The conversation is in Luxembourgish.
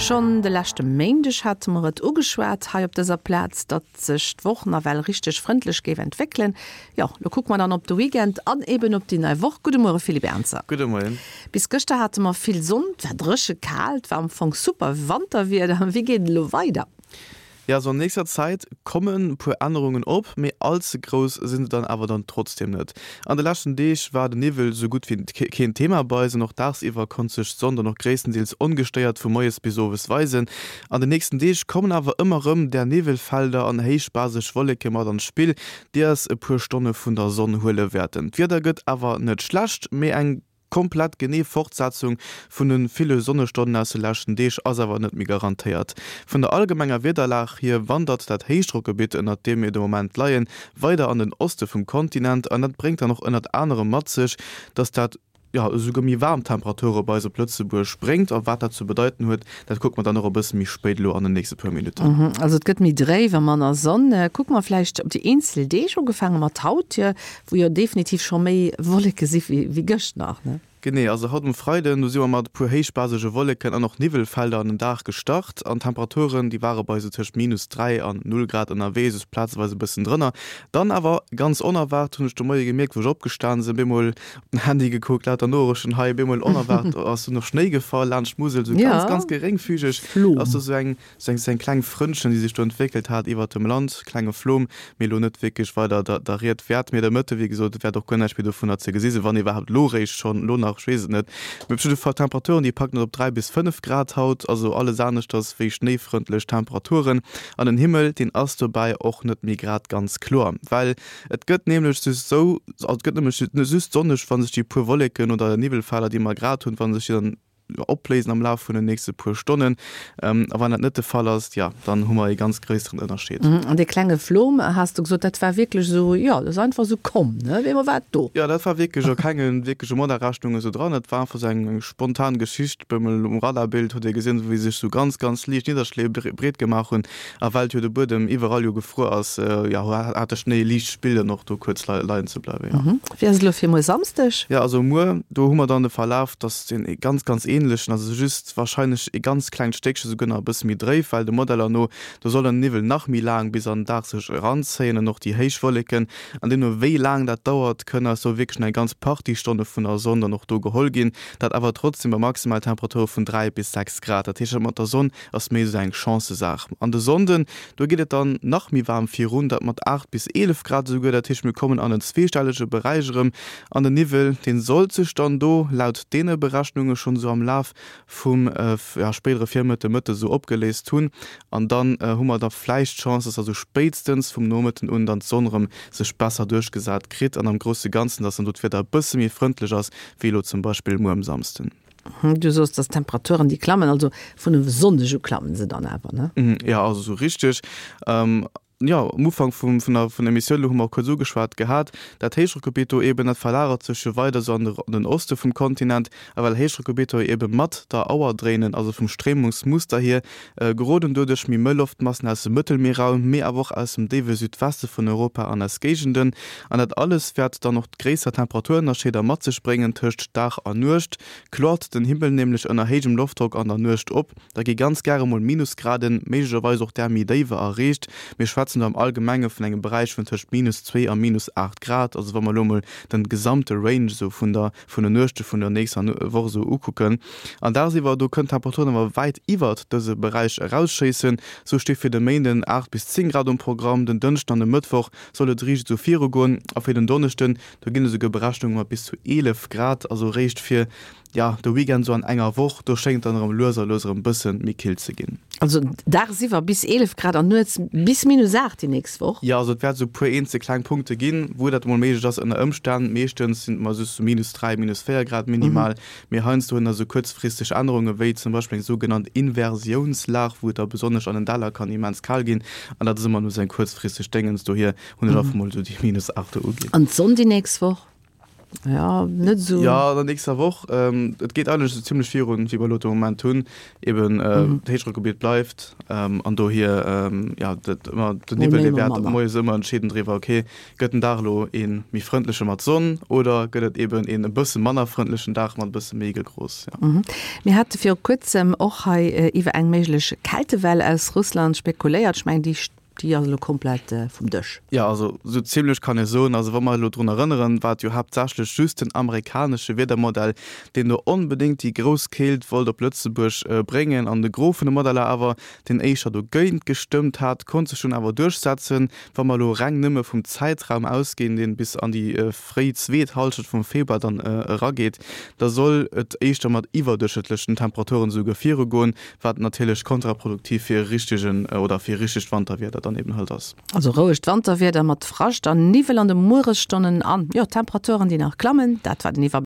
Schonn de leschte Méindeg hate mer et ugeschwat hei op dëser Plaz, datt sech d'Woch nawell richteg frëndlech géif entwéckelen. Jo, lo kucke mer dann op de Weekend an eben op déi nei Woch. Gudde Muere Philippe Ernzer. Gudde Moien. Bis gëschter hate mer vill Sonn, et war dréche kal, et war am Fong super Wanterwieder. Wéi geet et elo weider? Jo, also an nächster Zäit kommen puer Ännerungen op, mee all ze grouss sinn se dann awer dann trotzdem net. An de leschten Deeg war de Niwwel sou gutt wéi keen Thema bei eis an och dagsiwwer konnt sech d'Sonn dann och gréisstendeels ongestéiert vu moies bis owes weisen. An de nächsten Deeg kommen awer ëmmer rëm där Niwwelfelder an héichbaseg Wolleke mat an d'Spill, déi eis e puer Stonne vun der Sonn huele wäerten. D'Wieder gëtt awer net schlecht, mee eng. Komplett genee Fortsetzung vun de ville Sonnestonnen aus de leschten Deeg ass awer net méi garantéiert. Vun der allgemenger Wiederlag hier wandert dat Héichdrockgebitt, ënnert deem mir de Moment leien, weider an den Oste vum Kontinent an dat bréngt dann och ënnert anerem mat sech, dass dat, jo, esouguer méi waarm Temperature bei eis op Lëtzebuerg bréngt. A wat dat ze bedeiten huet, dat kucke mer dann och e bësse méi spéit elo an den nächste puer Minutten. Also et gëtt méi dréif a manner Sonn. Kucke mer vläicht op déi eenzel Deeg, ugefaange mat haut, Wou jo definitiv scho méi Wolleke si wéi gëscht nach, ne? Genee, also haut um Freiden, do si mer mat e puer héichbasege Wolleken an och Niwwelfelder an den Dag gestart an d'Temperaturen, déi ware bei esou tëscht minus 3 an 0 Grad ënnerwee, soss plazeweis e bëssen drënner. Dann awer ganz onerwaart hunn ech de Moie gemierkt, wou ech opgestan sinn, bemol op den Handy gekuckt, lauter Noorichten hei, bemol onerwaart ass dunn och Schnéi gefall laanscht d'Musel, esou ganz, ganz geréngfügeg ass do esou eng Sou eng kleng Frëndchen, déi sech do entwéckelt hat iwwert dem Land, klenge Flom, mee elo net wierklech weider der Ried wäert. Mee de Mëtte, wéi gesot, wäert och guer näischt méi dovunner ze gesi sinn, wann iwwerhaapt elo réischt schonn, elo nach, ech weess et net. Mee op jidde Fall, d'Temperaturen, déi packen et op 3 bis 5 Grad haut, also alles aneschters wéi schnéifrëndlech Temperaturen. An den Himmel, deen ass dobäi och net méi grad ganz kloer, well et gëtt nämlech just sou, also et gëtt nämlech just sonneg, wa sech déi puer Wolleken oder Niwwelfelder, déi mer grad hunn, wa sech déi dann opléisen am Laf vun den nächste puer Stonnen. A wann dat net de Fall ass, jo, dann hu mer ee ganz gréisseren Ënnerscheed. An dee klenge Flom, has de gesot, dat war wierklech esou, jo, dat ass einfach esou komm, ne? Op eemol war et do. Jo, dat war wierklech a kenge wierkleche Modelrechnungen esou dran. Dat war einfach esou eng spontan Geschicht. Op eemol um Radarbild huet ee gesinn, wéi sech esou ganz, ganz liicht Nidderschléi breet gemaach hunn. A well jo de Buedem iwwerall jo gefruer ass, jo, hat de Schnéi liicht Spill dann och do kuerz leien ze bleiwen, jo. Wéi ass et elo fir muer Samsdeg? Jo, also muer, do hu mer dann de Verlaf, dass deen ee ganz, ganz ähnlechen, also just wahrscheinlech ee ganz klengt Stéckche souguer nach e bësse méi dréif, well de Modeller no, do soll den Niwwel nach méi laang bis an den Dag sech eranzéien an och déi héich Wolleken. An deemno wéi laang dat dauert, kënne eis do wierklech nach eng ganz Partie Stonne vun der Sonn dann och do geholl ginn, dat awer trotzdem bei maximal Temperature vun 3 bis 6 Grad. Dat heescht, dat mat der Sonn ass méi esou eng Chancësaach. An de Sonnden, do geet et dann nach méi waarm virun, dat mat 8 bis 11 Grad esouguer. Dat heescht, mir kommen an en zweestellege Beräich erëm. An den Niwwel, dee sollt sech dann do laut deene Berechnunge schonn esou am Laf vum spéidere Virmëtte, Mëtte esou opgeléist hunn. An dann hu mer da vläicht d'Chance, dass da sou spéitstens vum Nomëtten un dann d'Sonn erëm sech besser duerchgesat kritt an am grousse Ganzen, dass dann do d'Wieder e bësse méi frëndlech ass, wéi elo zum Beispill muer um Samsden. Du soos, dass d'Temperaturen déi klammen, also vun e Sonndeg u klammen se dann awer, ne? Jo, also sou richteg. Jo, um Ufank vum, vun der, vun der Emissioun elo hu mer och kuerz ugeschwat gehat, dat Héichdrockgebitt do eeben, dat verlagert sech jo weider sou an de, an den Oste vum Kontinent. A well Héichdrockgebitter jo eebe mat der Auer dréinen, also vum Stréimungsmuster hier, geroden doduerch méi mëll Loftmassen aus dem Mëttelmierraum, mee awer och aus dem déiwe Südweste vun Europa an eis Géigenden. An dat alles wäert dann och gréisser Temperaturënnerscheeder mat sech bréngen tëscht Dag a Nuecht. Kloert den Himmel nämlech ënner héijem Loftdrock an der Nuecht op, da gi ganz gäre mol Minusgraden, méiglecherweis och där méi déiwer erreecht. Mir schwätzen do am Allgemenge vun engem Beräich vun tëscht minus 2 a minus 8 Grad, also wa mer elo mol den gesamte Range esou vun der vun den Nuechte vun der nächster Woch esou ukucken. An dagsiwwer, do kënnen d'Temperaturen awer wäit iwwert dëse Beräich erausschéissen. Sou sti fir de Méinden 8 bis 10 Grad um Programm, den Dënschden an de Mëttwoch soll et riicht esou virugoen a fir den Donneschden, do ginn esouguer Berechnunge mat bis zu 11 Grad, also eréischt fir, jo, de Weekend esou an enger Woch, do schéngt et dann erëm lues a lues erëm bësse méi kill ze ginn. Also dagsiwwer bis 11 Grad an nuets bis minus 8 déi nächst Woch? Jo, also et wäert esou e puer eenzel kleng Punkte ginn, wou dat emol méiglech ass ënner Ëmstänn. Meeschtens sinn et mer just esou minus 3, minus 4 Grad minimal, mee heiansdo hunn der esou kuerzfristeg Ännerunge wéi zum Beispill eng sougenannt Inversiounslag, wou et da besonnesch an den Däller kann immens kal ginn an dat ass ëmmer nëmme esou eng kuerzfristeg Déngens. Dohier hunn ech einfach mol esou déi minus 8 do uginn. An d'Sonn déi nächst Woch? Jo, net esou. Jo, an der nächster Woch. Et geet eigentlech esou zimmlech virun, wéi mer elo de Moment hunn. Eben, d'Héichdrockgebiet bleift an dohier, jo, dat ëmmer, den Niwwel, dee wäert moies ëmmer entscheeden driwwer, okay, gëtt den Dag elo ee méi frëndleche mat Sonn oder gëtt et eben een e bësse manner frëndlechen Dag mat e bësse méi Gegros, jo. Mir hate viru kuerzem och hei iwwer eng méiglech Kältewell aus Russland spekuléiert. Ech mengen, déi Déi ass elo komplett vum Dësch. Jo, also esou zimlech kann ee soen. Also wa mer elo drun erënneren, war et jo haaptsächlech just den amerikanesche Wiedermodell, deen do onbedéngt déi grouss Keelt wollt op Lëtzebuerg bréngen an de Gros vun de Modeller awer, deen éischter dogéint gestëmmt hat, konnt sech dunn awer duerchsetzen. Wa mer elo reng nëmme vum Zäitraum ausginn, deen bis an déi fréi zweet Hallschent vum Februar dann erageet, da soll et éischter mat iwwerduerchschnëttlechen Temperaturen esouguer virugoen, wat natierlech kontraproduktiv fir e richtegen oder fir richtegt Wanterwieder dann eben halt ass. Also rouegt Wanterwieder mat Frascht an Niwwel an de Mueresstonnen an, jo, Temperaturen déi nach klammen, dat war den Iwwerbléck.